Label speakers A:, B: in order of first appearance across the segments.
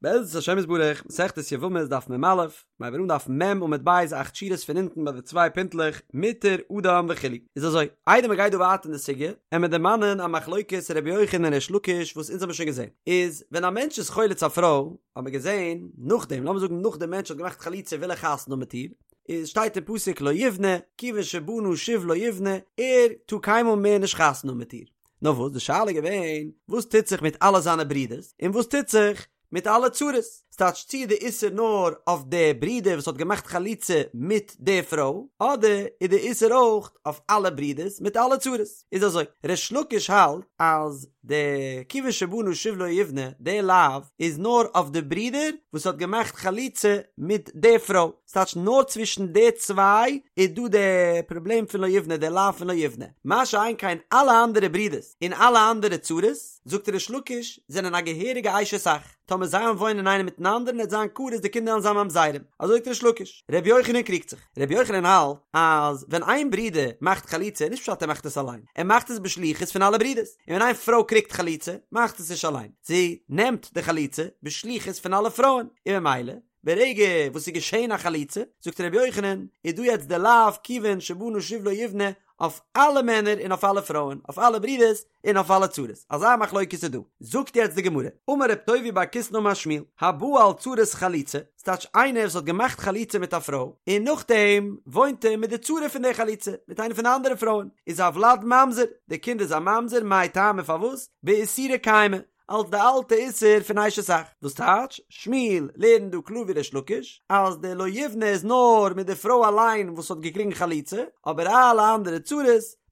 A: בעזרת השם יתברך, מסכת יבמות דף מ"א, מיר הייבן אן דף מ' עמוד ב' אכט שורות פון אונטן ביי די צוויי פינטלעך, מותר אדם וכו'. איז אזוי, איידער מען גייט דא ווייטער אין די סוגיא, עמיר דערמאנען א מחלוקת ר' יוחנן און ריש לקיש וואס אונז האבן שוין געזען, איז ווען א מענטש איז חולץ א פרוי, האט מען געזען, נאכדעם, לאמיר זאגן נאך דער מענטש האט געמאכט חליצה וויל ער חתונה האבן מיט איר, איז שטייט אין פסוק לא יבנה, כיוון שבנה שוב לא יבנה, ער טאר קיינמאל מער נישט חתונה האבן מיט איר. נאר וואס די שאלה איז געווען, וואס טוט זיך מיט אלע זיינע ברידערס, און וואס טוט זיך מיט אלע צרות? ס'טייטש צי איז די איסור נאר אויף די ברודער וואס האט געמאכט חליצה מיט די פרוי, אדער איז די איסור אויך אויף אלע ברידערס מיט אלע צרות? איז אזוי, ריש לקיש האלט אז די כיוון שבנה שוב לא יבנה, די לאו איז נאר אויף די ברודער וואס האט געמאכט חליצה מיט די פרוי, ס'טייטש נאר צווישן די צוויי איז דא די פראבלעם פון לא יבנה, די לאו פון לא יבנה, מה שאין כן אלע אנדערע ברידערס און אלע אנדערע צרות, זאגט ריש לקיש, זענען א געהעריגע אשת אח, טאמער זיי וועלן וואוינען איינער מיטן אנדערן עט זיין כרת די קינדער וועלן זיין ממזרים, אזוי זאגט ריש לקיש. ר' יוחנן קריגט זיך, ר' יוחנן האלט אז ווען איין ברודער מאכט חליצה נישט פשט ער מאכט עס אליין, ער מאכט עס בשליחות פון אלע ברידערס, און ווען איין פרוי קריגט חליצה מאכט עס נישט אליין, זי נעמט די חליצה בשליחות פון אלע פרויען, און ממילא ברגע וואס ס'איז געשען א חליצה, זאגט ר' יוחנן, איז דא יעצט די לאו כיוון שבנה שוב לא יבנה אויף אלע מענער און אויף אלע פרויען, אויף אלע ברידערס און אויף אלע צרות. אזא מחלוקת איז דא. זאגט יעצט די גמרא, אמר רב טובי בר קיסנא אמר שמואל, הבא על צרת חלוצה, ס'טייטש איינער וואס האט געמאכט חליצה מיט א פרוי, און נאכדעם וואוינט ער מיט די צרה פון די חליצה, מיט איינע פון די אנדערע פרויען, איז הולד ממזר, די קינד איז א ממזר, מאי טעמא פארוואס? באיסורא קיימא, אלס די אלטע איסור פון אשת אח, וואס טייטש, שמואל לערנט דא קלאר ווי ריש לקיש, אז די לא יבנה איז נאר מיט די פרוי אליין וואס האט געקריגן חליצה, אבער אלע אנדערע צרות,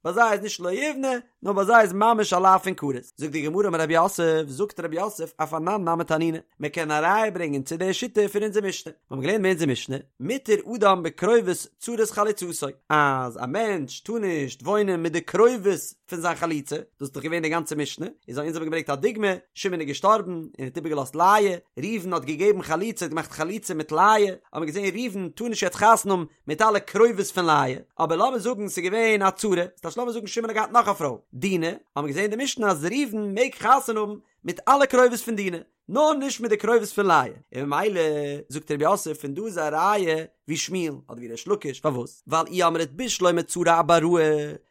A: ביי זיי איז נישט לא יבנה, נאר ביי זיי איז ממש א לאו פון כרת. זאגט די גמרא אמר רב יוסף, זאגט רב יוסף, אף אנן נמי תנינא, מען קען א ראיה ברענגען צו די שיטה פון אונזער משנה, מיר האבן געלערנט אין אונזער משנה, מותר אדם בקרובות צרת חלוצתו, אז א מענטש טאר נישט וואוינען מיט די קרובות פון זיין חלוצה, דאס איז דאך געווען די גאנצע משנה, איז אונז האבן געברענגט א דוגמא, שמעון איז געשטארבן און האט איבערגעלאזט לאה, ראובן האט געגעבן חליצה, האט געמאכט חליצה מיט לאה, האט מען געזען ראובן טאר נישט יעצט חתונה האבן מיט אלע קרובות פון לאה, אבער לאמיר זאגן ס'איז געווען א צרה, ס'טייטש לאמיר זאגן שמעון האט געהאט נאך א פרוי, דינה, האט מען געזען אין די משנה אז ראובן מעג חתונה האבן מיט אלע קרובות פון דינה, נאר נישט מיט די קרובות פון לאה, און ממילא זאגט רב יוסף פון דא איז א ראיה ווי שמואל אדער ווי ריש לקיש, פארוואס? ווייל אי אמרת בשלמא צרה אבראי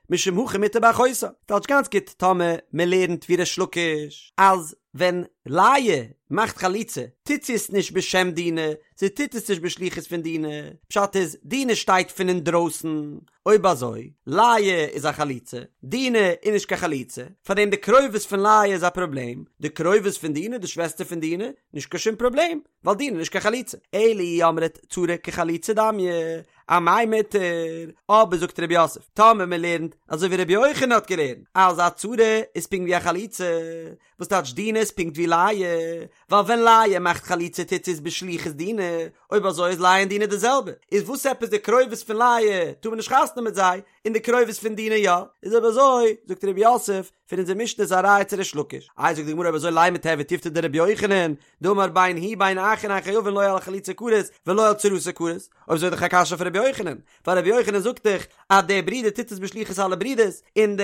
A: משום הכי מותר באחותה, טייטש גאנץ גוט טאמער מען לערנט ווי ריש לקיש אז ווען לאה מאכט חליצה טוט זי עס נישט בשם דינה, זי טוט עס נישט בשליחות פון דינה, פשט איז דינה שטייט פון אינדרויסן, אויב אזוי, לאה איז א חלוצה, דינה איז נישט קיין חלוצה, פארדעם די קרובות פון לאה איז א פראבלעם, די קרובות פון דינה, די שוועסטער פון דינה, נישט קיין שום פראבלעם, ווייל דינה איז נישט קיין חלוצה. אלא אי אמרת צרה כחלוצה דמיא, אמאי מותר, אבער זאגט רב יוסף, טאמער מען לערנט אזוי ווי רבי יוחנן האט געלערנט, אז א צרה איז פונקט ווי א חלוצה, וואס טייטש דינה איז פונקט ווי לאה, ווייל ווען לאה מאכט חליצה טוט זי עס בשליחות דינה, אויב אזוי איז לאה און דינה די זעלבע, איז וואס עפעס די קרובות פון לאה טאר מען נישט חתונה מיט זיי, און די קרובות פון דינה יא, איז אויב אזוי זאגט רב יוסף, פון אונזער משנה איז א ראיה צו ריש לקיש, איי זאגט די גמרא אויב אזוי לימא תיהוי תיובתא דרבי יוחנן, דאמר בין הוא בין אחין אין חייבין לא על חלוצה כרת ולא על צרתה כרת, אויב אזוי איז דאך א קשיא אויף רבי יוחנן, ווייל רבי יוחנן זאגט דאך אז דער ברודער טוט עס בשליחות אלע ברודערס, און די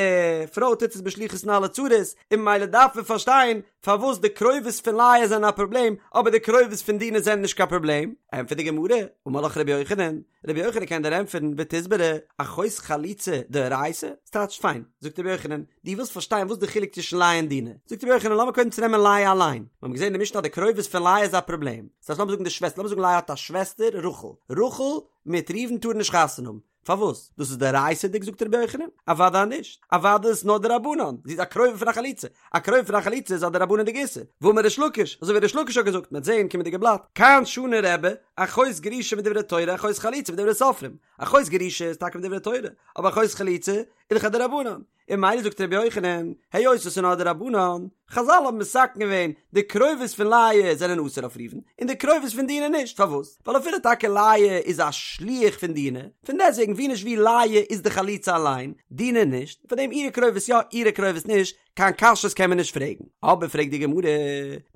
A: פרוי טוט עס בשליחות פון אלע צרות, און ממילא דארף מען פארשטיין פארוואס די קרובות פון לאה זענען א פראבלעם, אבער די קרובות פון דינה זענען נישט קיין פראבלעם, ענטפערט די גמרא, אמר לך רבי יוחנן, רבי יוחנן קען דיר ענטפערן ותסברא, אחות חלוצה דאורייתא, ס'טייטש פיין, זאגט רבי יוחנן, דו ווילסט פארשטיין וואס די חילוק צווישן לאה און דינה, זאגט רבי יוחנן לאמיר קודם צונעמען לאה אליין, מיר האבן געזען אין די משנה אז די קרובות פון לאה איז א פראבלעם, ס'טייטש לאמיר זאגן די שוועסטער, לאמיר זאגן לאה האט א שוועסטער רחל, רחל מיט ראובן טארן נישט חתונה האבן, פארוואס? דאס איז דאורייתא'דיג זאגט רבי יוחנן? אוודאי נישט, אוודאי איז עס נאר דרבנן, זי איז א קרובה פון א חלוצה, א קרובה פון א חלוצה איז א דרבנן'דיגע איסור, והאמר ריש לקיש, אזוי ווי ריש לקיש האט געזאגט, מ'וועט זעהן קומענדיגע בלאט, כאן שנה רבי, אחות גרושה מדברי תורה אחות חלוצה מדברי סופרים, אחות גרושה איז טאקע מדברי תורה, אבער אחות חלוצה איז דאך א דרבנן, און ממילא זאגט רבי יוחנן, היות עס איז נאר דרבנן, חזל האבן מתקן געווען, די קרובות פון לאה זענען אסור אויף ראובן, און די קרובות פון דינה נישט, פארוואס? ווייל אפילו טאקע לאה איז א שליח פון דינה, פון דעסטוועגן ווי נישט ווי לאה איז די חלוצה אליין, דינה נישט, פאר דעם אירע קרובות יא אירע קרובות נישט, קיין קשיות קען מען נישט פרעגן. אבער פרעגט די גמרא,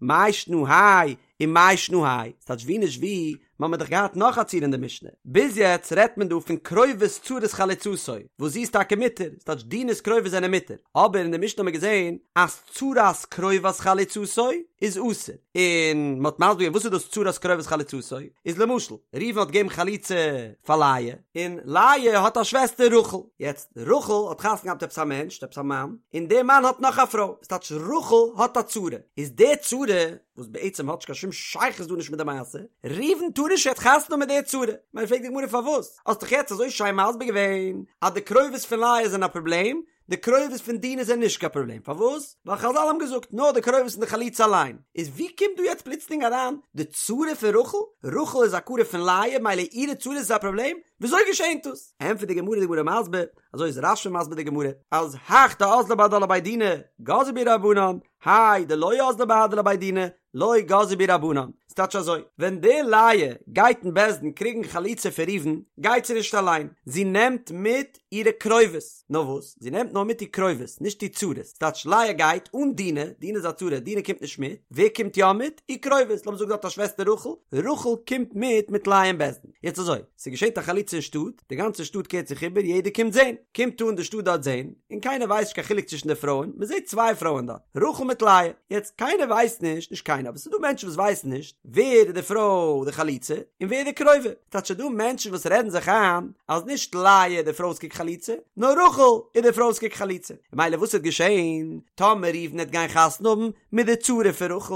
A: מאי שנא האי ומאי שנא האי, ס'טייטש ווי נישט ווי, מ'האמיר דאך געהאט נאך א ציור אין די משנה, ביז יעצט רעדט מען דא פון קרובות צרת חלוצתו, וואס זי איז טאקע מותר, ס'טייטש דינה'ס קרובות זענען מותר, אבער אין די משנה האמיר געזען אז צרת. צרת קרובת חלוצתו איז אסור, און מ'האט מסביר געווען וואס איז דאס צרת קרובת חלוצתו, איז למשל, ראובן האט געגעבן חליצה פאר לאה, און לאה האט א שוועסטער רחל, יעצט רחל האט חתונה געהאט מיט עפעס א מענטש, עפעס א מאן, און דער מאן האט נאך א פרוי, וואס טייטש רחל האט א צרה, איז די צרה, וואס בעצם האט נישט קיין שום שייכות דא נישט מיט די מעשה, ראובן טאר נישט יעצט חתונה האבן מיט די צרה, מילא פרעגט די גמרא פארוואס, האסט דאך יעצט אזוי שיין מסביר געווען אז די קרובות פון לאה זענען א פראבלעם, די קרובות פון דינה זענען נישט קיין פראבלעם, פארוואס? ווייל חזל האבן געזאגט נאר די קרובות פון די חלוצה אליין, איז ווי קומט דא יעצט פלוצלינג אריין די צרה פון רחל? רחל איז א קרוב פון לאה מילא אירע צרות איז א פראבלעם? וויאזוי געשענט דאס? ענטפערט די גמרא די גמרא מסביר, אזוי איז רש"י מסביר די גמרא, אז הך דאזלה בהדה לבי דינא גזרו בהו רבנן, האי דלא אזלה בהדה לבי דינא לא גזרו בהו רבנן, ס'טייטש אזוי, ווען די לאה גייט אין בית דין קריגן חליצה פון ראובן, גייט זי נישט אליין, זי נעמט מיט אירע קרובות, נאר וואס, זי נעמט נאר מיט איר קרובות, נישט איר צרות, ס'טייטש לאה גייט אן דינה, דינה איז א צרה, דינה קומט נישט מיט, ווער קומט יא מיט? איר קרובות, לאמיר זאגן זי האט א שוועסטער רחל, רחל קומט מיט מיט לאה אין בית דין, יעצט אזוי, ס'געשעט א חליצה אין שטאט, די גאנצע שטאט קערט זיך איבער, יעדער קומט זען, קומט אן די שטאט דארט זען, און קיינער ווייסט נישט קיין חילוק צווישן די פרויען, מען זעט צוויי פרויען דארט, רחל מיט לאה, יעצט קיינער ווייסט נישט, נישט קיינער, אבער ס'איז דא מענטשן וואס ווייסן נישט, ווער איז די פרוי די חלוצה, און ווער די קרובה, ס'טייטש ס'איז דא מענטשן וואס רעדן זיך איין, אז נישט לאה איז די פרוי וואס קריגט חליצה, נאר רחל איז די פרוי וואס קריגט חליצה, ממילא וואס וועט געשען, טאמער ראובן וועט גיין חתונה האבן מיט די צרה פון רחל,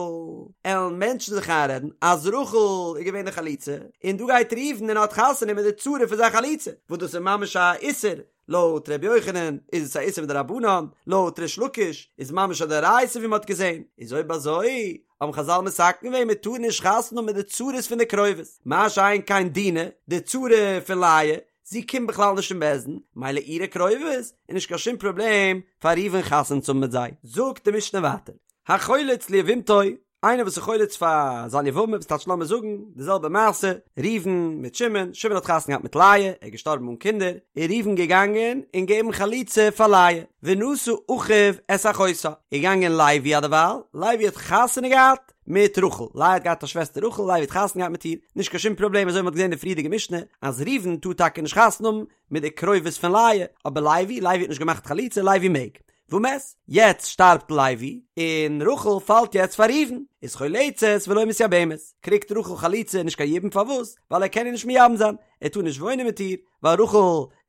A: עלן מענטשן זיך איינרעדן אז רחל איז געווען די חלוצה, און דא גייט ראובן און האט חתונה מיט די צרה פון זיין חלוצה, וואס דאס איז ממש א איסור, לויט ר' יוחנן איז עס א איסור מדרבנן, לויט ריש לקיש איז ממש א דאורייתא ווי מען האט געזען, איז אויב אזוי האבן חזל מתקן געווען מען טאר נישט חתונה האבן מיט די צרות פון די קרובות, מה שאין כן דינה, די צרה פון לאה, זי קומט בכלל נישט אין בית דין, מילא אירע קרובות איז נישט קיין שום פראבלעם פאר ראובן חתונה צו האבן מיט זיי. זאגט די משנה ווייטער, החולץ ליבמתו, איינער וואס איז חולץ פאר זיין יבמה, וואס טייטש לאמיר זאגן די זעלבע מעשה, ראובן מיט שמעון, שמעון האט חתונה געהאט מיט לאה, ער איז געשטארבן אן קינדער, איז ראובן געגאנגען און געבן חליצה פאר לאה, ונשא אחיו את אחותה, איז געגאנגען לוי אדערווייל, לוי האט חתונה געהאט מיט רחל, לאה האט געהאט א שוועסטער רחל, לוי האט חתונה געהאט מיט איר, נישט קיין שום פראבלעם, אזוי ווי מען האט געזען אין די פריערדיגע משנה, אז ראובן טאר טאקע נישט חתונה האבן מיט די קרובות פון לאה, אבער לוי, לוי האט נישט געמאכט חליצה, לוי מעג. ומת, יעצט שטארבט לוי, און רחל פאלט יעצט פאר ראובן, איז חולצת ולא מתייבמת, קריגט רחל חליצה נישט קיין יבום פארוואס? ווייל ער קען איר נישט מייבם זיין, ער טאר נישט וואוינען מיט איר, ווייל רחל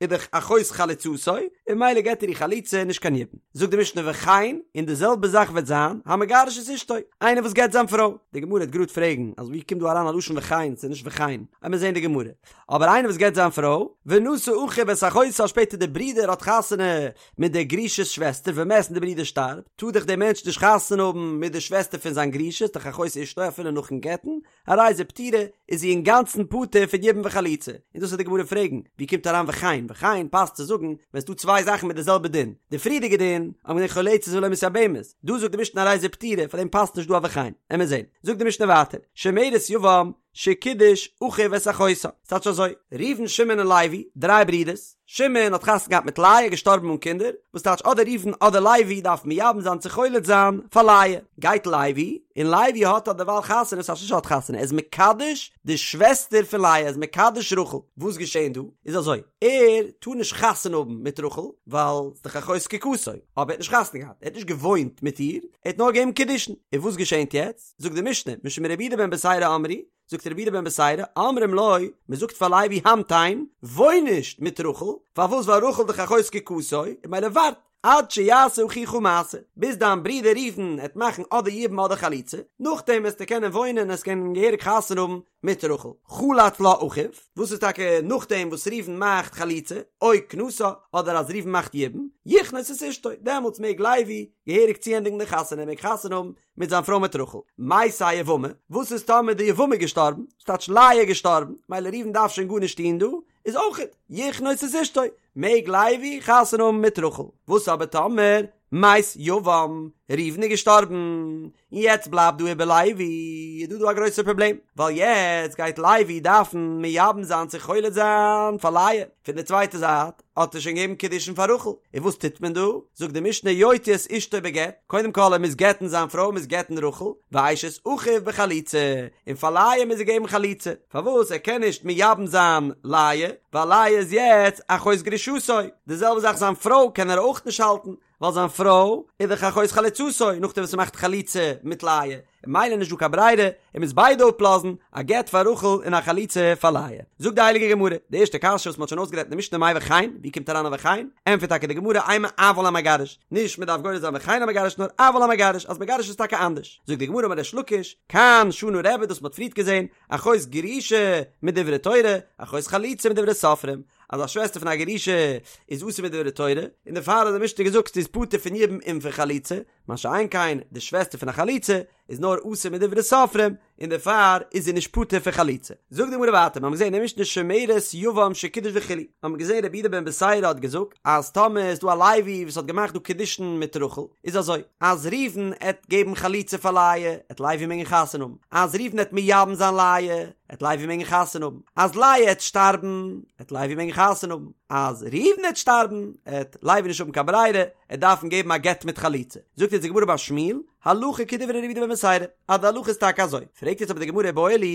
A: איז דאך אחות חלוצתו, און ממילא געט ער איר חליצה נישט קיין יבום. זאגט די משנה וכן, און די זעלבע זאך וועט זיין, המגרש את אשתו, איינער וואס גט זיין פרוי. די גמרא וועט גראד פרעגן, אז ווי קומט דא אריין א לשון וכן, ס'איז נישט וכן, עמיר זעהן די גמרא. אבער איינער וואס גט זיין פרוי, ונשא אחיו את אחותה שפעטער די ברודער האט חתונה מיט דער גרושה'ס שוועסטער ומת און די ברודער שטארבט, טאר דאך דער מענטש נישט חתונה האבן מיט די שוועסטער פון זיין גרושה, ס'איז דאך אחות אשתו אפילו נאכן גט'ן, הרי זו פטורה, איז זי אינגאנצן פטור פון יבום וחליצה. און דאס וועט די גמרא פרעגן, ווי קומט אריין וכן? וכן פאסט צו זאגן ווען ס'דא צוויי זאכן מיט די זעלבע דין. די פריערדיגע דין, האבן געזען חולצת ולא מתייבמת, דא זאגט די משנה הרי זו פטורה, פאר דעם פאסט נישט דא א וכן. עמיר זען. זאגט די משנה ווייטער, שומרת יבם, שקידש אחיו את אחותה. ס'טייטש אזוי, ראובן שמעון און לוי, דריי ברידערס, שמעון האט חתונה געהאט מיט לאה, געשטארבן אן קינדער, וואס טייטש אדער ראובן אדער לוי דארף מייבם זיין צו חולץ זיין פאר לאה. גייט לוי, און לוי האט אדערווייל חתונה, ס'טייטש נישט האט חתונה, ער איז מקדש די שוועסטער פון לאה, ער איז מקדש רחל. וואס געשען דא? איז אזוי, ער טאר נישט חתונה האבן מיט רחל, ווייל ס'איז דאך אחות זקוקתו, אבער ער האט נישט חתונה געהאט, ער האט נישט געוואוינט מיט איר, ער האט נאר געגעבן קידושין. און וואס געשענט יעצט? זאגט די משנה, משום רבי יהודה בן בתירא אמרו, זאגט רבי יהודה בן בתירא, אומרים לו, מען זאגט פאר לוי המתן, וואוין נישט מיט רחל, פארוואס ווייל רחל דאך אחות זקוקתו, און ממילא ווארט, עד שיעשה אחיך מעשה, ביז דיין ברודער ראובן עט מאכן אדער יבום אדער חליצה, נאכדעם וועסטו קענען וואוינען עסט קענען געהעריג חתונה האבן מיט רחל. חלץ לה אחיו, וואס איז טאקע נאכדעם וואס ראובן מאכט חליצה, או כנסה, אדער אז ראובן מאכט יבום, יכנוס את אשתו, דעמאלטס מעג לוי געהעריג צוענדיגן די חתונה, ער מעג חתונה האבן מיט זיין פרוי מיט רחל. מתה היבמה, וואס איז טאמער די יבמה איז געשטארבן, ס'טייטש לאה איז געשטארבן, מילא ראובן דארף שוין גארנישט טון דא, איז אויכעט, יכנוס את אשתו, מעג לוי חתונה האבן מיט רחל. וואס אבער טאמער, מת יבם, ראובן איז געשטארבן, און יעצט בלייבט דא איבער לוי, איז דא דא א גרויסער פראבלעם, ווייל יעצט גייט לוי דארפן מייבם זיין צו חולץ זיין פאר לאה, פון די צווייטע זייט, האט ער שוין געגעבן קידושין פאר רחל, און וואס טוט מען דא? זאגט די משנה יוציא את אשתו בגט, קודם כל ער מוז גט'ן זיין פרוי, מוז גט'ן רחל, ואשת אחיו בחליצה, און פאר לאה מוז ער געבן חליצה, פארוואס ער קען נישט מייבם זיין לאה, ווייל לאה איז יעצט אחות גרושתו, די זעלבע זאך זיין פרוי קען ער אויך נישט האלטן, ווייל זיין פרוי איז דאך אחות חלוצתו נאכדעם וואס ער מאכט חליצה מיט לאה, און ממילא נישט דא קיין ברירה, ער מוז ביידע אפלאזן, א גט פאר רחל און א חליצה פאר לאה. זאגט די הייליגע גמרא, די ערשטע קשיא וואס מען האט שוין אויסגערעדט אין די משנה מאי וכן, ווי קומט אריין א וכן? ענטפערט טאקע די גמרא אימא אבל המגרש, נישט מען דארף גורס זיין וכן המגרש נאר אבל המגרש, אז מגרש איז טאקע אנדערש. זאגט די גמרא אמר ריש לקיש, כאן שנה רבי דאס מען האט פריערט געזען, אחות גרושה מדברי תורה, אחות חלוצה מדברי סופרים, אז א שוועסטער פון א גרושה איז אסור מדברי תורה, און דערפאר האט די משנה געזאגט זי איז פטור פון יבום און פון חליצה, מה שאין כן די שוועסטער פון א חלוצה איז נאר אסור מדברי סופרים, און דערפאר איז זי נישט פטור פון חליצה. זאגט די גמרא ווייטער, מיר האבן געזען אין משנה שומרת יבם שקידש וכו', האבן מיר געזען רבי יהודה בן בתירא האט געזאגט אז טאמער איז דא א לוי וואס האט געמאכט דא קידושין מיט רחל, איז אזוי, אז ראובן עט געבן חליצה פאר לאה, עט לוי מעגן חתונה האבן, אז ראובן עט מייבם זיין לאה, עט לוי מעגן חתונה האבן, אז לאה עט שטארבן, עט לוי מעגן חתונה האבן, אז ראובן עט שטארבן, עט לוי נישט האבן קיין ברירה, עט דארפן געבן א גט מיט חליצה. זאגט יעצט די גמרא אמר שמואל, הלכה כדברי רבי יהודה בן בתירא, אז די הלכה איז טאקע אזוי. פרעגט יעצט אבער די גמרא איבעיא להו,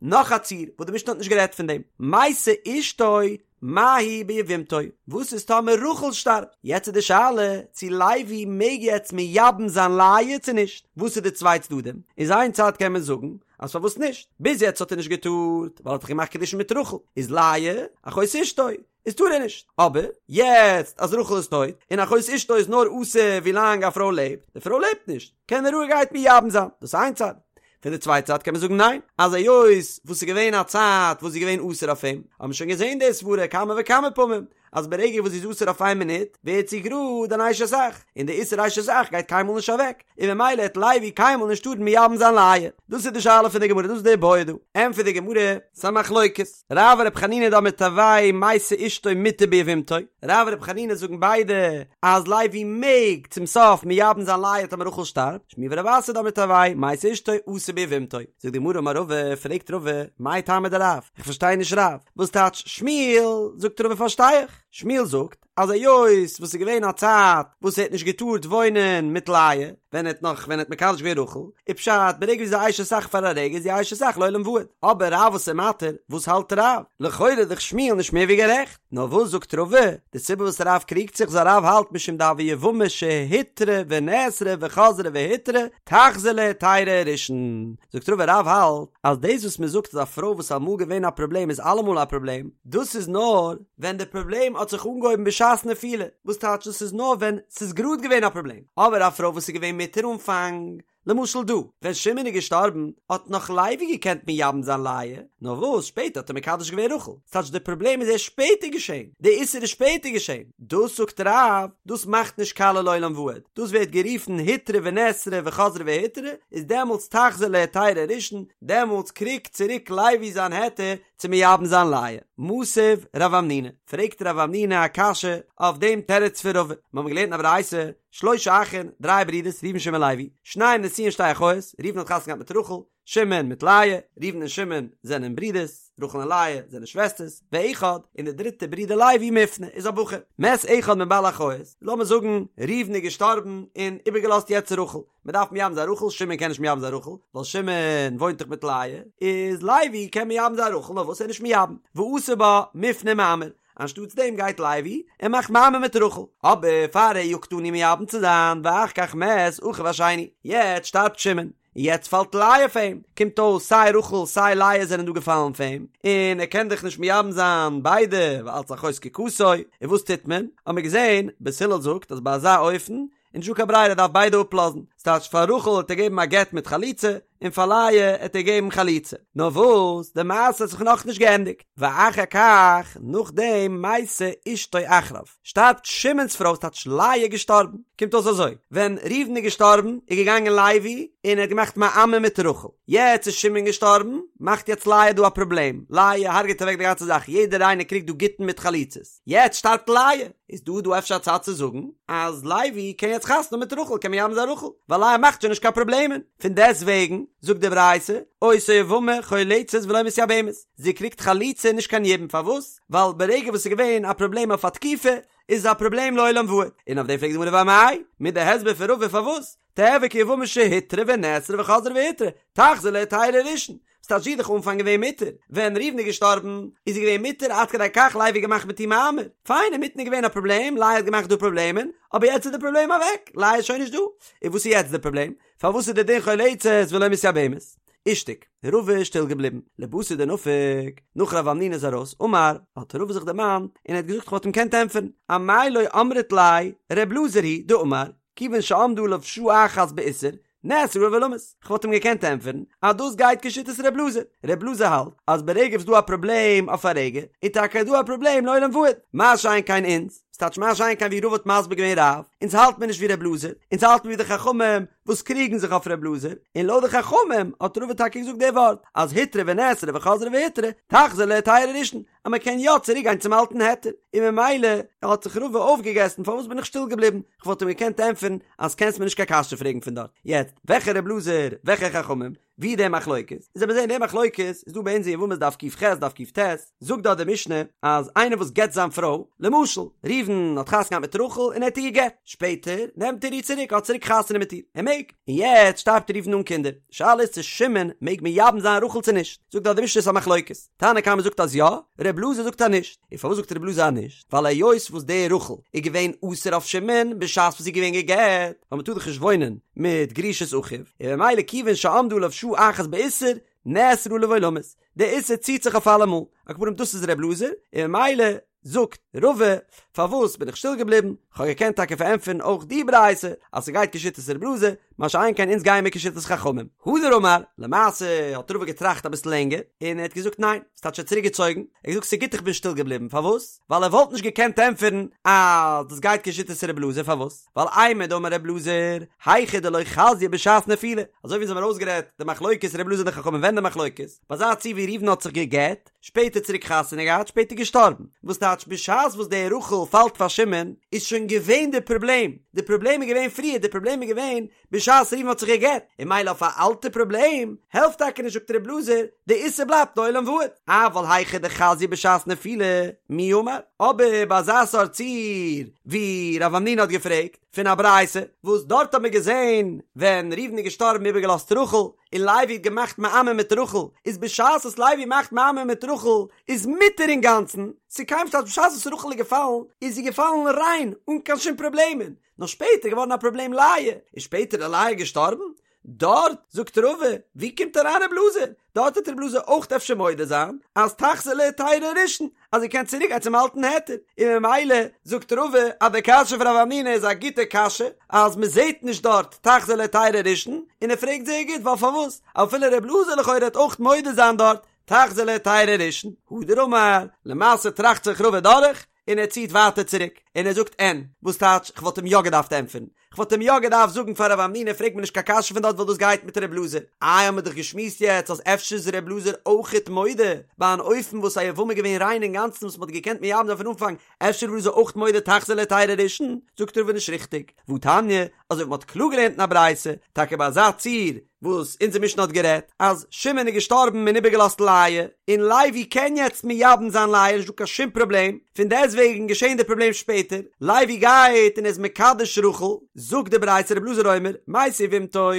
A: נאך א ציור וואס די משנה האט נישט גערעדט פון דעם, מתה אשתו מהו ביבמתו, וואס איז טאמער רחל שטארבט? יעצט איז די שאלה צו לוי מעג יעצט מייבם זיין לאה צו נישט, וואס איז די צוויי צדדים? איז איין צד קען מען זאגן אז פארוואס נישט? ביז יעצט האט ער נישט געטארט ווייל ער האט דאך געמאכט קידושין מיט רחל, איז לאה אחות אשתו, איז טאר ער נישט, אבער יעצט אז רחל איז טויט און אחות אשתו איז נאר אסור ווילאנג א פרוי לעבט, די פרוי לעבט נישט, קען ער רואיגערהייט מייבם זיין, דאס איז איין צד. פון די צווייטע צד קען מען זאגן ניין, אז היות וואס ס'איז געווען א צייט וואס זי איז געווען אסור אויף אים, האבן מיר שוין געזען די סברה כמה וכמה פעמים, אז ברגע וואס זי איז אסור אויף איין מינוט, ווערט זי גראד אן אשת אח, און די איסור אשת אח גייט קיינמאל נישט אוועק, און ממילא העט לוי קיינמאל נישט טארן מייבם זיין לאה. דאס איז די שאלה פון די גמרא, דאס איז די בעיא דא. ענטפערט די גמרא, ס'איז א מחלוקת. רב ור' חנינא דאמרי תרוייהו מתה אשתו מותר ביבמתו, רב און ר' חנינא זאגן ביידע אז לוי מעג צום סוף מייבם זיין לאה טאמער רחל שטארבט, שמואל ורב אסי דאמרי תרוייהו מתה אשתו אסור ביבמתו. זאגט די גמרא אמר רבא, פרעגט רבא, מאי טעמא דרב? איך פארשטיי נישט רב, וואס טייטש שמואל? זאגט רבא פארשטיי איך, שמואל זאגט אז היות וואס ס'איז געווען א צייט וואס ער האט נישט געטארט וואוינען מיט לאה, ווען ער האט נאך ווען ער האט מקדש געווען רחל, איז פשט ברגע ווי זי איז אשת אח פאר א רגע איז זי אשת אח לעולם ועד, אבער רב וואס איז מתיר, וואס האלט רב? לכאורה איז דאך שמואל נישט מער ווי גערעכט, נאר וואס זאגט רבא? די סיבה וואס רב קריגט זיך איז רב האלט משום דהוה יבמה שהותרה ונאסרה וחזרה והותרה, תחזור להיתירה הראשון, זאגט רבא רב האלט אז דאס וואס מען זאגט אז א פרוי וואס איז אמאל געווען א פראבלעם איז אלעמאל א פראבלעם, דאס איז נאר ווען די פראבלעם האט זיך אנגעהויבן בשעת נפילה, וואס טייטש דאס איז נאר ווען ס'איז גראד געווען א פראבלעם, אבער א פרוי וואס איז געווען מותר אנפאנג, למשל דא, ווען שמעון איז געשטארבן האט נאך לוי געקענט מייבם זיין לאה, נאר וואס שפעטער האט ער מקדש געווען רחל, ס'טייטש די פראבלעם איז ערשט שפעטער געשען, די איסור איז שפעטער געשען, דאס זאגט רב, דאס מאכט נישט קאליע לעולם ועד, דאס ווערט גערופן הותרה ונאסרה וחזרה והותרה, איז דעמאלטס תחזור להיתירה הראשון, דעמאלטס קריגט צוריק לוי זיין היתר צו מייבם זיין לאה. מתיב רב המנונא, פרעגט רב המנונא א קשיא אויף דעם תירוץ פון רבא, מיר האבן געלערנט אין א ברייתא, שלשה אחין, דריי ברידערס, ראובן שמעון לוי, שניים נשואין שתי אחיות, ראובן האט חתונה געהאט מיט רחל, שמעון מיט לאה, ראובן און שמעון זענען ברידערס, רחל און לאה זענען שוועסטערס, ואחד, און דער דריטער ברודער לוי מופנה איז א בחור. מת אחד מבעלי אחיות, לאמיר זאגן ראובן איז געשטארבן און איבערגעלאזט יעצט רחל, מען דארף מייבם זיין רחל, שמעון קען נישט מייבם זיין רחל, ווייל שמעון וואוינט דאך מיט לאה, איז לוי קען מייבם זיין רחל, נאר וואס ער איז נישט מייבם, ועשה בה מופנה ומאמר, אנשטאטס דעם גייט לוי און מאכט מאמר מיט רחל, אבער פאר ער יאגט אן איר מייבם צו זיין, ואחר כך מת אחיו השני, יעצט שטארבט שמעון, און יעצט פאלט לאה פאר אים, קומט אויס סיי רחל סיי לאה זענען דא געפאלן פאר אים, און ער קען דאך נישט מייבם זיין ביידע ווייל אלץ אחות זקוקתו, און וואס טוט מען? האט מען געזען, בית הלל זאגט אז ביי אזא אופן איז נישטא קיין ברירה ער דארף ביידע אפלאזן, ס'טייטש פאר רחל האט ער געגעבן א גט מיט חליצה, און פאר לאה האט ער געגעבן חליצה. נאר וואס, די מעשה האט זיך נאכנישט געענדיגט, ואחר כך, נאכדעם מתה אשתו אחריו, שטארבט שמעון'ס פרוי, ס'טייטש לאה איז געשטארבן, קומט אויס אזוי, ווען ראובן איז געשטארבן, איז געגאנגען לוי און ער האט געמאכט מאמר מיט רחל, יעצט איז שמעון געשטארבן, מאכט יעצט לאה דא א פראבלעם, לאה הרג'עט אוועק די גאנצע זאך, יעדער איינער קריגט דא גיטין מיט חליצות, יעצט שטארבט לאה, איז דא דא אפשר א צד צו זאגן אז לוי קען יעצט חתונה האבן מיט רחל קען מייבם זיין רחל ווייל לאה מאכט שוין נישט קיין פראבלעמען, פון דעסט וועגן זאגט די ברייתא אותה יבמה חולצת ולא מתייבמת, זי קריגט חליצה נישט קיין יבום פארוואס? ווייל ברגע וואס ס'איז געווען א פראבלעם אויף א תקופה איז עס א פראבלעם לעולם ועד, און אויף דעם פרעגט די גמרא ואמאי, מיט די הסבר פון רבא פארוואס? תיהוי כיבמה שהותרה ונאסרה וחזרה והותרה, תחזור להיתירה הראשון. ס'טייטש זי איז דאך אנפאנג געווען מותר, ווען ראובן איז געשטארבן איז זי געווען מותר עד כדי כך לוי האט געמאכט מיט איר מאמר, פיין אינמיטן איז געווען א פראבלעם לאה האט געמאכט דא פראבלעמען, אבער יעצט איז די פראבלעם אוועק, לאה איז שוין נישט דא, און וואס איז יעצט די פראבלעם? פארוואס איז די דין חולצת ולא מתייבמת? אישתיק, רבא איז שטיל געבליבן, לבתר דנפק, נאך רב המנונא איז ארויס, אמר, האט רבא זיך דערמאנט, און ער האט געזאגט כ'וואלט אים געקענט ענטפערן, אמאי לא אמרת ליה, ר' אלעזר היא דאמר, כיוון שעמדה עליו שעה אחת באיסור, נאסרה עליו עולמית. כ'וואלט אים געקענט ענטפערן אז דאס גייט כשיטת ר' אלעזר. ר' אלעזר האלט אז ברגע וואס דא א פראבלעם אויף א רגע, איז טאקע דא א פראבלעם לעולם ועד. מה שאין כן אונז, ס'טייטש מה שאין כן ווי רבא האט מסביר געווען רב, אונז האלט מיר נישט ווי ר' אלעזר, אונז האלט מיר ווי די חכמים וואס קריגן זיך אויף ר' אלעזר, און לויט די חכמים האט רבא טאקע געזאגט די ווארט אז הותרה ונאסרה וחזרה והותרה, תחזור להיתירה הראשון, אז מען קען יא צוריק גיין צום אלטן היתר, און ממילא האט זיך רבא אויפגעגעסן פארוואס בין איך שטיל געבליבן, כ'וואלט אים געקענט ענטפערן אז קענסט מיר נישט קיין קשיא פרעגן פון דארט, יעצט וועלכע ר' אלעזר וועלכע חכמים, ווי די מחלוקת, איז לאמיר זעהן די מחלוקת איז דא ביי אונז אין יבמות דף ק"ח דף ק"ט, זאגט דארט די משנה אז איינער וואס גט זיין פרוי, למשל ראובן האט חתונה געהאט מיט רחל און ער האט איר געגט, שפעטער נעמט ער איר צוריק האט צוריק חתונה מיט איר, ער מעג, און יעצט שטארבט ראובן אן קינדער, די שאלה איז צו שמעון מעג מייבם זיין רחל צו נישט, זאגט דארט די משנה ס'איז א מחלוקת. תנא קמא זאגט אז יא, ר' אלעזר זאגט אז נישט. און פארוואס זאגט ר' אלעזר אז נישט? ווייל היות וואס די רחל איז געווען אסור אויף שמעון בשעת וואס זי איז געווען גע'גט, ווייל מ'טאר דאך נישט וואוינען מיט גרושת אחיו, און ממילא כיוון שעמדה עליו שעה אחת באיסור, נאסרה עליו עולמית. די איסור ציט זיך אויף אלעמאל. על כל פנים דאס איז ר' אלעזר, און ממילא זאגט רבא, פארוואס בין איך שטיל געבליבן? כ'האב געקענט טאקע פארענטפערן אויך די ברייתא אז ס'גייט כשיטת ר' אלעזר, מה שאין כן אונז גייען מיר כשיטת חכמים. הדר אמר, למעשה האט רבא געטראכט אביסל לענגער, און ער האט געזאגט ניין, ס'טייטש ער האט צוריק געצויגן, ער האט געזאגט ס'גוט איך בין שטיל געבליבן, פארוואס? ווייל ער וואלט נישט געקענט ענטפערן אז דאס גייט כשיטת ר' אלעזר, פארוואס? ווייל אימר דאמר ר' אלעזר, היכא דלא חזיא בשעת נפילה, אזוי ווי אונז האבן ארויסגערעדט די מחלוקת ר' אלעזר און די חכמים ווען די מחלוקת, ביי אזא ציור ווי ראובן האט זיך גע'גט, שפעטער צוריק חתונה געהאט, שפעטער געשטארבן. וואס טייטש בשעת וואס די רחל פאלט פאר שמעון איז שוין געווען די פראבלעם, די פראבלעם איז געווען פריער, די פראבלעם איז געווען בשעת ראובן האט זיך גע'גט, און ממילא אויף א אלטע פראבלעם העלפט טאקע נישט זאגט ר' אלעזר, די איסור בלייבט לעולם ועד. אבל היכא דחזיא בשעת נפילה, מי אמר? אבער ביי אזא סארט ציור ווי רב המנונא האט געפרעגט פון א ברייתא, וואס דארט האט מען געזען ווען ראובן איז געשטארבן איבערגעלאזט רחל, און לוי האט געמאכט מאמר מיט רחל, איז בשעת וואס לוי מאכט מאמר מיט רחל איז מותר אינגאנצן, ס'קיים שטייט בשעת וואס רחל איז געפאלן איז זי געפאלן ריין אן קיין שום פראבלעמען, נאר שפעטער איז געווארן א פראבלעם לאה, איז שפעטער איז לאה געשטארבן, דארט זאגט רבא, ווי קומט אריין רב אלעזר? דארט וועט רב אלעזר אויך אפשר מודה זיין אז תחזור להיתירה הראשון, אז זי קען צוריק גיין צום אלטן היתר, און ממילא זאגט רבא אז די קשיא פון רב המנונא איז א גוטע קשיא, אז מען זעט נישט דארט תחזור להיתירה הראשון, און ער פרעגט זייער גוט ווייל פארוואס אפילו רב אלעזר לכאורה וועט אויך מודה זיין דארט תחזור להיתירה הראשון, הדר אמר, למעשה טראכט זיך רבא דורך, און ער ציט ווייטער צוריק, און ער זאגט אין, וואס טייטש כ'וואלט אים יא געדארפט ענטפערן, כ'וואלט אים יא געדארפט זאגן פאר רב המנונא פרעג מיר נישט קיין קשיא פון דארט ווייל דאס גייט מיט ר' אלעזר, איי האמיר דאך געשמועסט יעצט אז אפשר איז ר' אלעזר אויכעט מודה ביי אן אופן וואס א יבמה איז געווען ריין אינגאנצן וואס מ'האט געקענט מייבם זיין פון אנפאנג, אפשר איז ר' אלעזר אויכט מודה תחזור להיתירה הראשון, זאגט רבא נישט ריכטיג, והתניא, אזוי ווי מ'האט קלאר געלערנט אין א ברייתא, טאקע ביי אזא ציור וואס אונזער משנה האט גערעדט, אז שמעון איז געשטארבן און איבערגעלאזט לאה, און לוי קען יעצט מייבם זיין לאה, נישט דא קיין שום פראבלעם, פון דעסטוועגן געשען די פראבלעם שפעטער, לוי גייט און איז מקדש רחל, זאגט די ברייתא רבי אלעזר אומר, מתה יבמתו,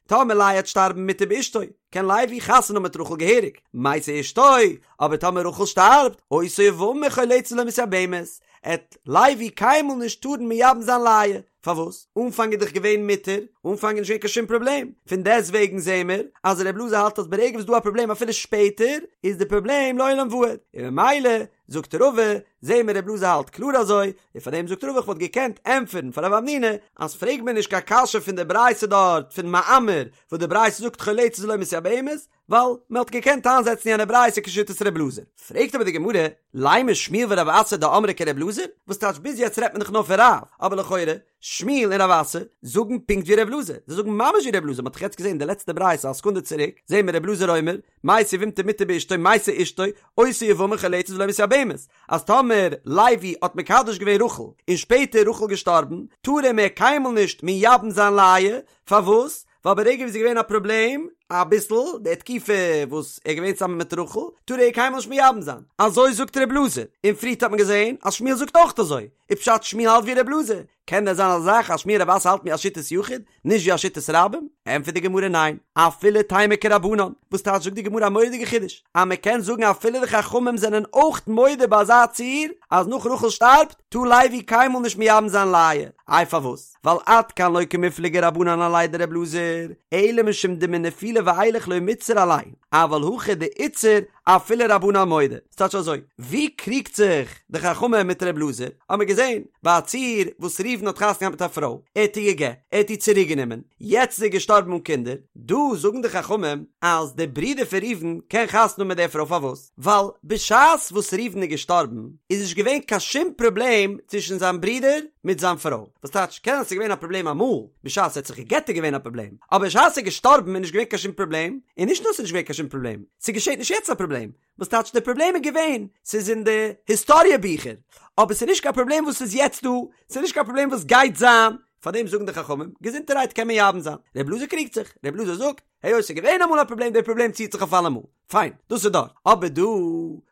A: טאמער לאה העט שטארבן מותר באשתו, קען לוי חתונה האבן מיט רחל געהעריג, מתה אשתו, אבער טאמער רחל שטארבט, אותה יבמה חולצת ולא מתייבמת, עט לוי קיינמאל נישט טארן מייבם זיין לאה, פארוואס? אנפאנג איז דאך געווען מותר, אנפאנג איז נישט געווען קיין שום פראבלעם, פון דעסט וועגן זעהן מיר אז ר' אלעזר האלט אז ברגע וואס דא א פראבלעם אפילו שפעטער, איז די פראבלעם לעולם ועד, און ממילא זאגט רבא, זעהן מיר ר' אלעזר האלט קלאר אזוי, און פאר דעם זאגט רבא איך וואלט געקענט ענטפערן פאר רב המנונא אז פרעג מיר נישט קיין קשיא פון די ברייתא דארט פון מאמר וואס די ברייתא זאגט חולצת ולא מתייבמת, ווייל מען האט געקענט איינזעצן יענע ברייתא כשיטת ר' אלעזר. פרעגט אבער די גמרא, לימא שמואל ורב אסי דאמרי כר' אלעזר? וואס טייטש ביז יעצט רעדט מען דאך נאר פון רב, אבער לכאורה, שמואל און רב אסי זאגן פונקט ווי ר' אלעזר, זיי זאגן ממש ווי ר' אלעזר, מען האט דאך יעצט געזען די לעצטע ברייתא א סעקונדע צוריק, זעהן מיר ר' אלעזר אומר, מתה יבמתו מותר באשתו מתה אשתו, אותה יבמה חולצת ולא מתייבמת, אז טאמער לוי האט מקדש געווען רחל און שפעטער רחל געשטארבן, טאר ער מער קיינמאל נישט מייבם זיין לאה, פארוואס? ווייל ברגע ווי ס'איז געווען א פראבלעם, אביסל, די תקופה וואס ער איז געווען צוזאמען מיט רחל, טאר ער איר קיינמאל נישט מייבם זיין. אזוי זאגט ר' אלעזר, און פריערט האט מען געזען אז שמואל זאגט אויך אזוי, איז פשט שמואל האלט ווי ר' אלעזר? קען דען זיין אזא זאך אז שמואל רב אסי האלט ווי א שיטת יחיד, נישט ווי א שיטת רבים? ענטפערט די גמרא ניין, אפילו תימא כרבנן, וואס טייטש זאגט די גמרא א מורא'דיגע חידוש, אז מען קען זאגן אפילו די חכמים זענען אויך מודה ביי אזא ציור, אז נאך רחל שטארבט, טאר לוי קיינמאל נישט מייבם זיין לאה, איי פארוואס? ווייל עד כאן לא קמיפלגי רבנן עליה דר' אלעזר, אלא משום דמנפילה ואילך לא מיתסר עלייהו, אבל הכא דאיתסר אפילו רבנן מודו. ס'טייטש אזוי, ווי קריגט זיך די חכמים מיט ר' אלעזר? האט מען געזען ביי א ציור וואס ראובן האט חתונה געהאט מיט א פרוי, ער האט איר גע'גט, ער האט איר צוריק גענומען, יעצט איז ער געשטארבן אן קינדער, דא זאגן די חכמים אז דער ברודער פון ראובן קען חתונה האבן מיט דער פרוי פארוואס? ווייל בשעת וואס ראובן איז געשטארבן איז נישט געווען קיין שום פראבלעם צווישן זיין ברודער מיט זיין פרוי, וואס טייטש קען זיין ס'איז געווען א פראבלעם אמאל בשעת ער האט זיך גע'גט איז געווען א פראבלעם, אבער בשעת ער איז געשטארבן איז נישט געווען קיין שום פראבלעם, און נישט נאר ס'איז נישט געווען קיין שום פראבלעם, ס'געשעט נישט יעצט א פראבלעם, וואס טייטש די פראבלעם איז געווען, ס'איז אין די היסטאריע ביכער, אבער ס'איז נישט קיין פראבלעם וואס איז יעצט דא, ס'איז נישט קיין פראבלעם וואס גייט זיין, פארדעם זאגן די חכמים, געזונטערהייט קען מען מייבם זיין, ר' אלעזר קריגט זיך, ר' אלעזר זאגט, היות ס'איז געווען אמאל א פראבלעם, די פראבלעם ציעט זיך אויף אלעמאל, פיין, דאס איז דארט, אבער דא,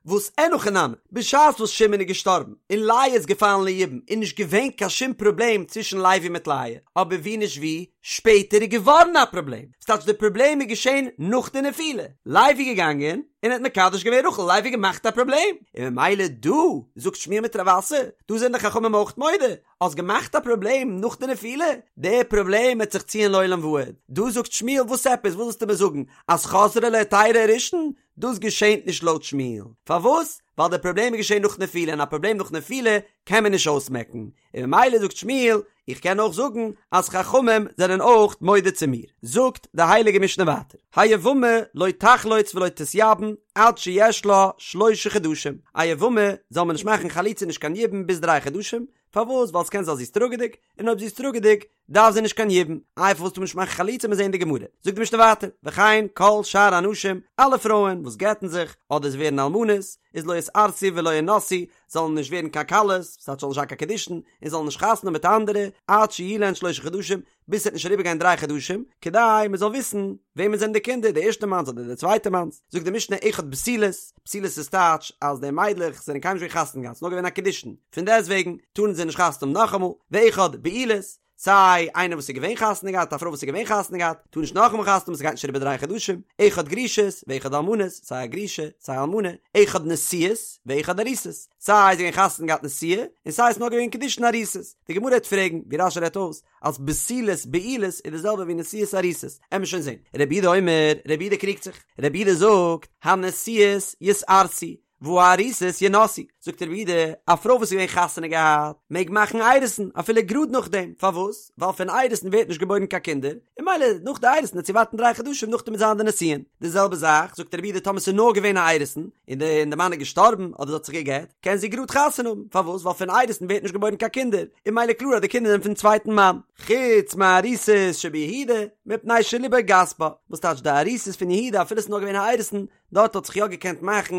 A: וואס אין הכי נמי, בשעת וואס שמעון איז געשטארבן, און לאה איז געפאלן ליבום, איז נישט געווען קיין שום פראבלעם צווישן לוי מיט לאה, אבער ווי נישט ווי, שפעטער איז געווארן א פראבלעם, ס'טייטש די פראבלעם איז געשען נאך די נפילה, לוי איז געגאנגען און האט מקדש געווען רחל, לוי האט געמאכט א פראבלעם, און ממילא דא זאגט שמואל מיט רב אסי, דא זענען די חכמים אויך מודה, האסט געמאכט א פראבלעם נאך די נפילה, די פראבלעם וועט זיך ציען לעולם ועד, דא זאגט שמואל וואס עפעס, וואס ווילסטו מיר זאגן, אז חזרה להיתירה הראשון, דאס געשענט נישט לויט שמואל, פארוואס? ווייל די פראבלעם איז געשען נאך נפילה און א פראבלעם נאך נפילה קען מען נישט אויסמעקן, און ממילא זאגט שמואל, איך קען אויך זאגן אז חכמים זענען אויך מודה צו מיר. זאגט די הייליגע משנה ווייטער, היבמה לא תחלוץ ולא תתייבם עד שיש לה שלשה חדשים, א יבמה זאל מען נישט מאכן חליצה נישט קיין יבום ביז דריי חדשים, פארוואס? ווייל ס'קען זיין זי איז טראגעדיג, און אויב זי איז טראגעדיג דארף זי נישט קיין יבום, איי פארוואס טאר מען נישט מאכן חליצה מיר זעהן אין די גמרא, זאגט די משנה ווייטער, וכן כל שאר הנשים, אלע פרויען וואס גט'ן זיך, אדער זיי ווערן אלמנות, איז לא יתארסו ולא ינשאו, זאלן נישט ווערן קיין כלות, ס'טייטש זאלן נישט זיין קיין קידושין, און זאלן נישט חתונה האבן מיט אנדערע, עד שיהיו להן שלשה חדשים, ביז ס'וועט נישט אריבערגיין דריי חדשים, כדי מען זאל וויסן וועמען זענען די קינדער, די ערשטע מאנס אדער די צווייטע מאנס. זאגט די משנה אחד בתולות, בתולות איז טייטש אז די מיידלעך זענען קיינמאל נישט געווען חתונה געהאט, ס'איז נאר געווען א קידושין, פון דעסטוועגן טארן זיי נישט חתונה האבן נאכאמאל, ואחד בעולות, סיי איינער וואס איז געווען חתונה געהאט, א פרוי וואס איז געווען חתונה געהאט, טאר נישט נאכאמאל חתונה האבן, ס'גייט נישט אריבער דריי חדשים, אחד גרושות, ואחד אלמנות, סיי א גרושה, סיי א אלמנה, אחד נשואות, ואחד ארוסות, סיי זי איז געווען חתונה געהאט נשואה, און סיי עס איז נאר געווען קידושין ארוסות. די גמרא וועט פרעגן, ווי רש"י רעדט אויס, אז בתולות בעולות איז די זעלבע ווי נשואות ארוסות, עמיר שוין זען. רבי יהודה אומר, רבי יהודה קריגט זיך, רבי יהודה זאגט, הנשואות יתארסו, והארוסות ינשאו, זאגט רבי יהודה, א פרוי וואס איז געווען חתונה געהאט, מעג מאכן אירוסין, אפילו גראד נאכדעם, פארוואס? ווייל פון אירוסין ווערט נישט געבוירן קיין קינדער, און ממילא נאך די אירוסין וועט זי ווארטן דריי חדשים נאכדעם וועט זיין די נישואין. די זעלבע זאך, זאגט רבי יהודה, טאמער ס'איז נאר געווען א אירוסין, און די און די מאן איז געשטארבן, אדער זי האט זיך גע'גט, קען זי גראד חתונה האבן, פארוואס? ווייל פון אירוסין ווערט נישט געבוירן קיין קינדער, און ממילא קלאר אז די קינדער זענען פון צווייטן מאן. חוץ מארוסות שביהודה, מפני שליבו גס בה, וואס טייטש די ארוסות פון יהודה אפילו ס'איז נאר געווען א אירוסין, דארט האט זיך יא געקענט מאכן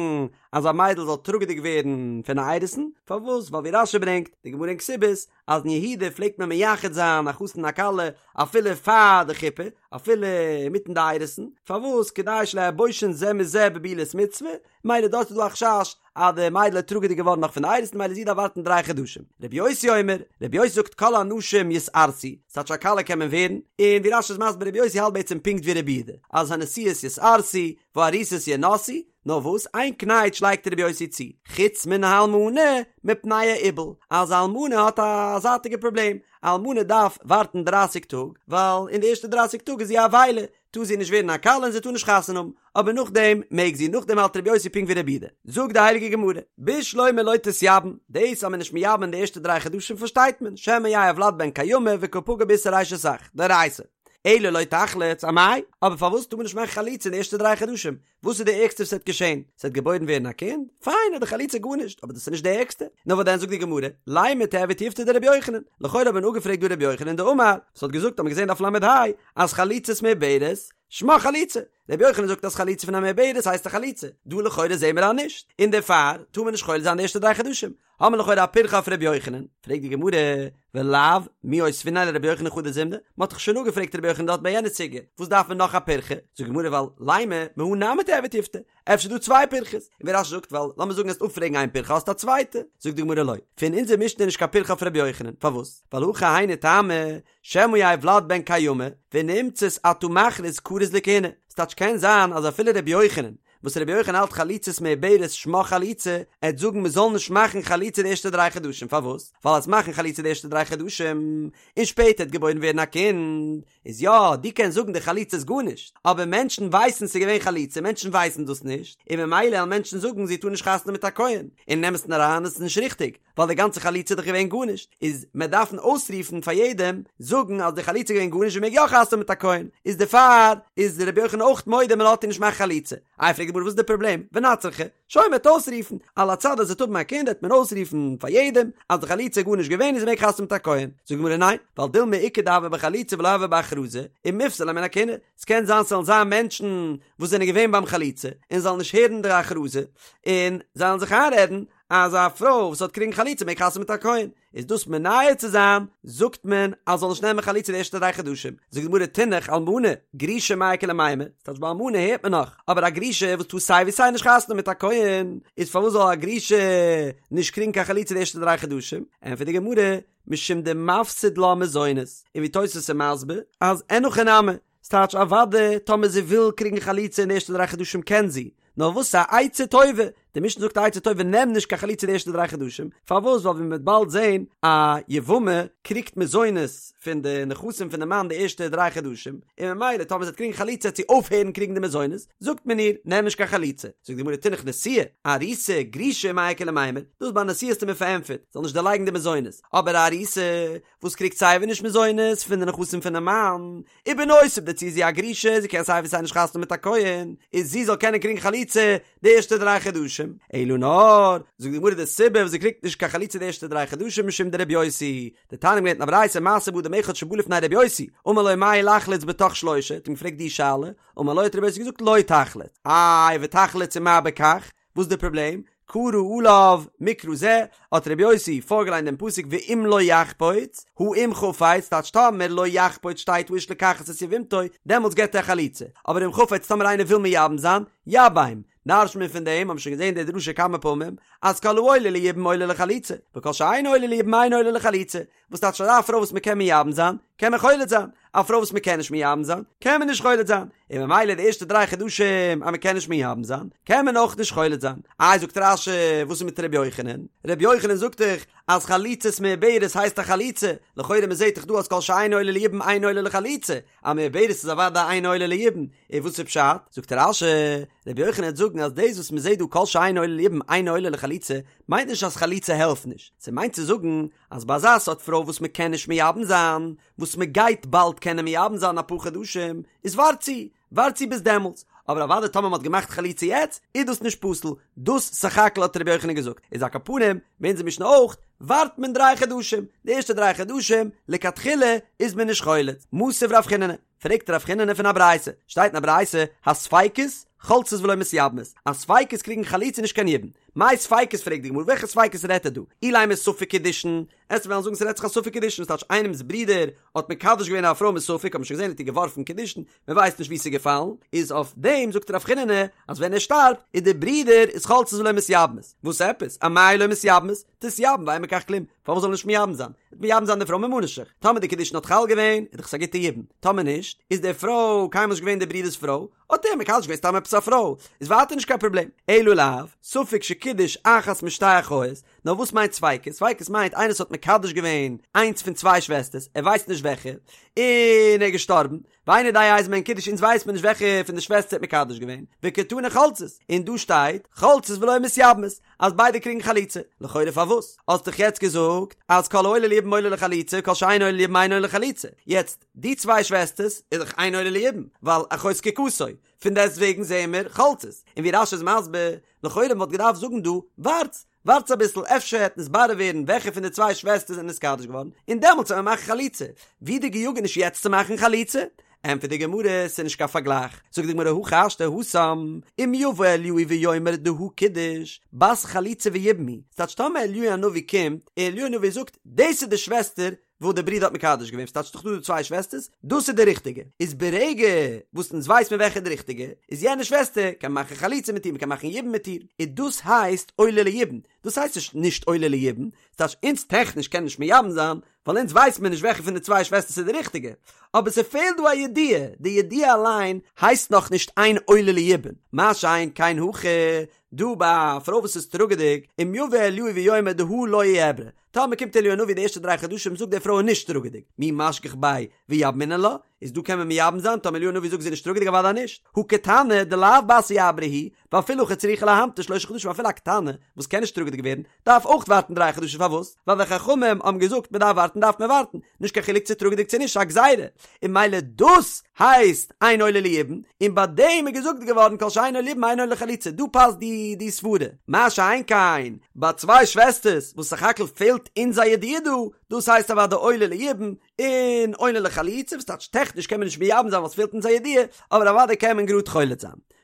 A: אז א מיידל זאל טראגעדיג ווערן פון א אירוסין, פארוואס? ווייל ווי רש"י ברענגט, די גמרא אין כתובות, אז אין יהודה פלעגט מען מייחד זיין א חתן און א כלה אפילו פאר די חופה, אפילו אינמיטן די אירוסין, פארוואס? כדי שלא יהו בושין זה מזה בבעילת מצוה, מילא דארט איז דא א חשש אז די מיידל איז טראגעדיג געווארן נאך פון די אירוסין מילא זי דארף ווארטן דריי חדשים. רבי יוסי אומר, רבי יוסי זאגט כל הנשים יתארסו, ס'טייטש א כלה קען מען ווערן, און ווי רש"י איז מסביר רבי יוסי האלט בעצם פונקט ווי רבי יהודה, אז הנשואות יתארסו, והארוסות ינשאו, נאר וואס איין קנייטש לייגט רבי יוסי צו, חוץ מן האלמנה מפני האיבול, אז א אלמנה האט א זייטיגע פראבלעם, א אלמנה דארף ווארטן דרייסיג טאג, ווייל אין די ערשטע דרייסיג טאג איז זי א אבילה, טאר זי נישט ווערן א כלה און זי טאר נישט חתונה האבן, אבער נאכדעם מעג זי, נאכדעם האלט רבי יוסי פונקט ווי רבי יהודה. זאגט די הייליגע גמרא, בשלמא לא תתייבם, דאס אז מען איז נישט מייבם אין די ערשטע דריי חדשים פארשטייט מען, שמא יהא הולד בן קיימא וקא פגע באיסור אשת אח, דאורייתא. אלא לא תחלוץ, אמאי? אבער פארוואס טאר מען נישט מאכן חליצה אין די ערשטע דריי חדשים? וואס איז די ערגסטע וואס וועט געשען? ס'וועט געבוירן ווערן א קינד? פיין, איז די חליצה גארנישט, אבער דאס איז נישט די ערגסטע. נאר וואס דען זאגט די גמרא, לימא תיהוי תיובתא דרבי יוחנן, לכאורה האט מען אפגעפרעגט דא רבי יוחנן דאמר, וואס האט געזאגט האט מען געזען דף ל"ה, אז חליצת מעוברת, שמה חליצה. רבי יוחנן זאגט אז חליצה פון א מעוברת הייסט א חליצה, דא לכאורה זעהן מיר אז נישט, און דערפאר טאר מען נישט חולץ זיין די ערשטע דריי חדשים, האמיר לכאורה א פירכא אויף רבי יוחנן, פרעגט די גמרא, ולאו מי אותביניה לרבי יוחנן חדא זימנא, מען האט דאך שוין אפגעפרעגט רבי יוחנן דארט ביי יענע סוגיא, וואס דארף מען נאך א פירכא? זאגט די גמרא ווייל לימא מהא נמי תיהוי תיובתא, אפשר איז דא צוויי פירכות, און ווי רש"י זאגט ווייל לאמיר זאגן וועסט אפפרעגן איין פירכא האסטו א צווייטע, זאגט די גמרא לא, פון אונזער משנה איז נישט קיין פירכא אויף רבי יוחנן, פארוואס? ווייל הכא היינו טעמא, שמא יהא ולד בן קיימא, ונמצאת אתה מכריז כרוז לכהונה, ס'טייטש קען זיין אז אפילו רבי יוחנן, וואס רבי יוחנן האלט חליצת מעוברת שמה חליצה, ער וועט זאגן מ'זאל נישט מאכן חליצה די ערשטע דריי חדשים, פארוואס? ווייל אז מאכן חליצה די ערשטע דריי חדשים, און שפעטער וועט געבוירן ווערן א קינד, איז יא, דו קענסט זאגן די חליצה איז גארנישט, אבער מענטשן ווייסן ס'איז געווען חליצה, מענטשן ווייסן דאס נישט, און ממילא וועלן מענטשן זאגן זי טאר נישט חתונה מיט א כהן, און אין אמת'ן אריין איז עס נישט ריכטיג, ווייל די גאנצע חליצה איז דאך געווען גארנישט, איז מען דארפן אויסרופן פאר יעדעם, זאגן אז די חליצה איז געווען גארנישט זי מעג יא חתונה מיט א כהן, איז דערפאר איז רבי יוחנן אויך מודה מען לאזט איר נישט מאכן חליצה. איי פרעגט די גמרא וואס איז די פראבלעם, ונצרכה, שוין מען וועט אויסרופן, על הצד אז זי וועט האבן א קינד וועט מען אויסרופן פאר יעדעם אז די חליצה איז גארנישט געווען און זי מעג חתונה מיט א כהן, זאגט די גמרא ניין, ווייל דילמא איכא דהוה בחליצה ולא הוה בהכרזה, ומיפסלה מן הכהונה, ס'קען זיין ס'וועלן זיין מענטשן וואס זענען געווען ביים חליצה און זאלן נישט הערן די הכרזה, און זיי וועלן זיך איינרעדן אז א פרוי וואס האט קריגן חליצה מעג חתונה מיט א כהן, איז דאס מונע צו זיין, זאגט מען אז זאל נישט נעמען חליצה די ערשטע דריי חדשים, זאגט די גמרא תינח אלמנה, גרושה מאי איכא למימר, ס'טייטש ביי אלמנה הערט מען נאך, אבער א גרושה וואס טאר סיי ווי סיי נישט חתונה מיט א כהן, איז פארוואס זאל א גרושה נישט קריגן קיין חליצה די ערשטע דריי חדשים, ענטפערט די גמרא, משום דמפסיד לה מזונות, און ווי תוס' איז מסביר, אז אין הכי נמי, ס'טייטש אוודאי טאמער זי וויל קריגן חליצה אין די ערשטע דריי חדשים קען זי, נאר וואס א עצה טובה, די משנה זאגט א עצה טובה נעם נישט קיין חליצה די ערשטע דריי חדשים, פארוואס ווייל ווי מ'וועט באלד זען א יבמה קריגט מזונות פון די נכסים פון די מאן די ערשטע דריי חדשים, און ממילא טאמער זי וועט קריגן חליצה וועט זי אויפהערן קריגן די מזונות, זאגט מען איר נעם נישט קיין חליצה, זאגט די גמרא תינח נשואה, ארוסה, גרושה מאי איכא למימר, דאס ביי נשואה האסטו מיר פארענטפערט, זאל נישט דערלייגן די מזונות, אבער א ארוסה וואס קריגט סייווי נישט מזונות פון די נכסים פונעם מאן, ובנוסף דערצו איז זי א גרושה, זי קען סיי ווי סיי נישט חתונה מיט א כהן, איז זי זאל קענען קריגן חליצה די ערשטע דריי חדשים, אלא נאר, זאגט די גמרא די סיבה וואס זי קריגט נישט קיין חליצה די ערשטע דריי חדשים משום דרבי יוסי, דתניא מ'האט געלערנט אין א ברייתא מעשה באדם אחד שבא לפני רבי יוסי, אמר לו מהו לחלוץ בתוך שלושה, האט אים געפרעגט די שאלה, אמר לו האט רבי יוסי געזאגט לא תחלוץ, איי ותחלוץ ומה בכך, וואס איז די פראבלעם? קרא עליו מקרא זה, האט רבי יוסי פארגעליינט דעם פסוק ואם לא יחפוץ, הא אם חפץ, טייטש טאמער לא יחפוץ שטייט האיש לקחת את יבמתו, דעמאלטס געבט ער חליצה, אבער אם חפץ טאמער איינער וויל מייבם זיין, יבם, דרש'ט מען פון דעם, האבן שוין געזען די דרשה כמה פעמים, אז כל העולה ליבום עולה לחליצה, וכל שאינו עולה ליבום אינו עולה לחליצה, וואס טייטש אז א פרוי וואס מען קען מייבם זיין, קען מען חולץ זיין, א פרוי וואס מען קען נישט מייבם זיין, קען מען נישט חולץ זיין, און ממילא די ערשטע דריי חדשים אז מען קען נישט מייבם זיין, קען מען אויך נישט חולץ זיין. איי זאגט רש"י, וואס איז מיט ר' יוחנן? ר' יוחנן זאגט דאך אז חליצת מעוברת הייסט א חליצה, לכאורה מען זעט דאך דא אז כל שאינו עולה ליבום אינו עולה לחליצה, א מעוברת איז אוודאי אינו עולה ליבום, און וואס איז פשט? זאגט רש"י, ר' יוחנן וועט זאגן אז דאס וואס מען זעט דא כל שאינו עולה ליבום אינו עולה לחליצה, מיינט נישט אז חליצה העלפט נישט, ס'מיינט צו זאגן אז ביי אזא סארט פרוי וואס מען קען נישט מייבם זיין, וואס מען גייט באלד קענען מייבם זיין אפאר חדשים, איז ווארט צו, ווארט צו ביז דעמאלטס, אבער אוודאי טאמער מען האט געמאכט חליצה יעצט, איז דאס נישט פסול, דאס סך הכל האט רבי יוחנן געזאגט, איז על כל פנים, ביי אונזער משנה אויך, ווארט מען דריי חדשים, די ערשטע דריי חדשים, לכתחילה, איז מען נישט חולץ, מתיב רב חיננא, פרעגט רב חיננא פון א ברייתא, שטייט אין א ברייתא, הספיקות, חולצות ולא מתייבמות, אז ספיקות קריגן חליצה נישט קיין יבום. מאי ספיקות פרעגט די גמרא וועלכע ספיקות רעדט ער דא? אילימא ספק קידושין, עסט וועלן זאגן ס'רעדט זיך א ספק קידושין, ס'טייטש איינעמ'ס ברודער האט מקדש געווען א פרוי מספק האט מען שוין געזען האט איר געווארפן קידושין, מען ווייסט נישט וואו ס'איז געפאלן, איז אויף דעם זאגט רב חיננא אז ווען ער שטארבט איז די ברודער איז חולצות ולא מתייבמות, וואס עפעס? אמאי לא מתייבמות? תתייבם ואין בכך כלום, פארוואס זאל ער נישט מייבם זיין? וועט מייבם זיין די פרוי ממה נפשך, טאמער די קידושין האט חל געווען איז דאך עס א גוטע יבום, טאמער נישט איז די פרוי קיינמאל נישט געווען די ברודער'ס פרוי, האט ער מקדש געווען סתם עפעס א פרוי, איז ווייטער נישט קיין פראבלעם. אלא לאו, ספק שקידש אחת משתי אחיות, נאר וואס מיינט ספיקות? ספיקות מיינט איינער וואס האט מקדש געווען איינס פון צוויי שוועסטערס, ער ווייסט נישט וועלכע, און ער איז געשטארבן, ואינו יודע איזו מהן קידש אונז ווייסט מען נישט וועלכע פון די שוועסטער האט מקדש געווען, וקתני חולצות, און דא שטייט חולצות ולא מתייבמות, אז ביידע קריגן חליצה, לכאורה פארוואס? האסט דאך יעצט געזאגט אז כל העולה ליבום עולה לחליצה כל שאינו עולה ליבום אינו עולה לחליצה, יעצט די צוויי שוועסטערס איז דאך אינו עולה ליבום, ווייל אחות זקוקתו, פון דעסט וועגן זעען מיר חולצות, און ווי רש"י איז מסביר, לכאורה מען וואלט געדארפט זאגן דא, ווארטס, ווארטס אביסל אפשר העט נתברר ווערן וועלכע פון די צוויי שוועסטערס זענען נתקדש געווארן, און דעמאלטס וועט מען מאכן חליצה, ווי די געיאגעניש יעצט צו מאכן חליצה? ענטפערט די גמרא, ס'איז נישט קיין פארגלייך, זאגט די גמרא הכי השתא התם, אם יבא אליהו ויאמר דהא קידוש, בת חליצה ויבום היא, ס'טייטש טאמער אליהו הנביא קומט, און אליהו הנביא זאגט, דאס איז די שוועסטער וואס די ברודער האט מקדש געווען, ס'טייטש ס'דאך דא די צוויי שוועסטערס, דאס איז די ריכטיגע, איז ברגע וואס אונז ווייס מיר וועלכע איז די ריכטיגע, איז יענע שוועסטער קען מען מאכן חליצה מיט איר, מ'קען מאכן יבום מיט איר, און דאס הייסט עולה ליבום, דאס הייסט נישט נישט עולה ליבום, ס'טייטש אונז טעכניש קען נישט מייבם זיין, ווייל אונז ווייס מיר נישט וועלכע פון די צוויי שוועסטערס איז די ריכטיגע, אבער ס'פעלט דא א ידיעה, די ידיעה אליין הייסט נאך נישט אין עולה ליבום, מה שאין כן הכא, דא ביי א פרוי וואס איז טראגעדיג, אם יבא אליהו ויאמר דהא לא איעברה, טאמער קומט אליהו הנביא די ערשטע דריי חדשים זאגט די פרוי איז נישט טראגעדיג, מי משגח ביה ויבמינן לה, איז דא קען מען מייבם זיין טאמער אליהו הנביא זאגט זי איז נישט טראגעדיג אוודאי נישט, הא קטנה דלאו בת איעבורה היא, ואפילו הכי צריכה להמתין שלושה חדשים אפילו א קטנה וואס קען נישט טראגעדיג ווערן דארף אויך ווארטן דריי חדשים פארוואס? ווייל די חכמים האבן געזאגט מען דארף ווארטן דארף מען ווארטן, נישט קיין חילוק צו טראגעדיג צו נישט ס'איז א גזירה, און ממילא דאס הייסט אין עולה ליבום, און ביי דעם איז געזאגט געווארן כל שאין עולה ליבום אין עולה לחליצה, דא פאסט די די סברה, מה שאין כן ביי צוויי שוועסטערס וואס סך הכל פעלט אונז א ידיעה דא, דאס הייסט אוודאי עולה ליבום, און עולה לחליצה, וואס טייטש טעכניש קען מען נישט מייבם זיין ווייל ס'פעלט אונז א ידיעה, אבער אוודאי קען מען גראד חולץ זיין.